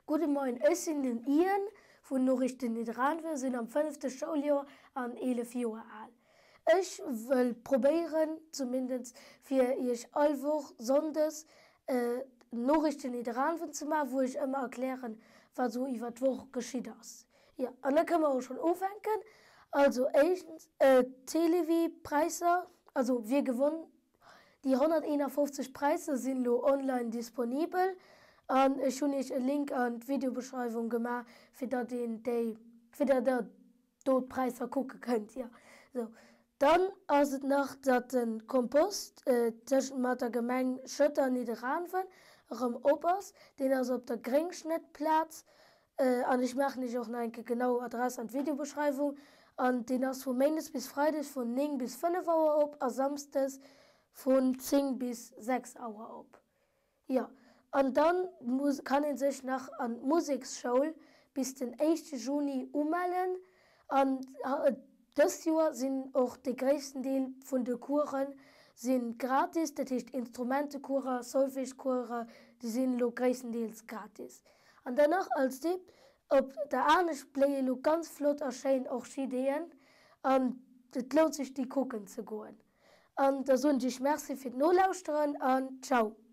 Gudde Moien, ech sinn den Ian vun Noriichten Nidderaanwen, sinn am fënnefte Schouljoer an 11 Joer al. Ech wëll probéieren, zumindest fir iech all Woch Sonndes Noriichten Nidderaanwen ze maachen, wou ech ëmmer erklären, wat esou iwwer d'Woch geschitt ass. Jo, an da kënne mer och schonn ufänken. Also éischtens, d'Télévie-Präisser, also wie gewonn Déi 151 Präisser sinn elo online disponibel an ech hunn iech e Link an d'Videobeschreiwung gemaach fir datt een déi, fir datt der do d'Präisser kucke kënnt. Jo sou. Dann ass et nach datt de Kompost tëschent mat der Gemeng Schëtter an Nidderaanwen erëm op ass. Deen ass op der Gréngschnëttplaz An ech maachen iech och nach eng Kéier genau Adress an d'Videobeschreiwung. An deen ass vu Méindes bis Freides vun 9 bis 5 Auer op a Samsdes vun 10 bis 6 Auer op. Jo, an dann kann ee sech nach an d'Museksschoul bis den éischte Juni umellen. An dëst Joer sinn och de gréissten Deel vun de Coursen si gratis, dat heescht Instrumentecoursen, Solfège-Coursen, déi sinn elo gréisstendeels gratis. An dann nach als Tipp, Op der Anescht bléie lo ganz flott a schéin Orchideeën an et lount sech déi kucken ze goen. An da soen ech iech Merci fir d'Nolauschteren an Ciao!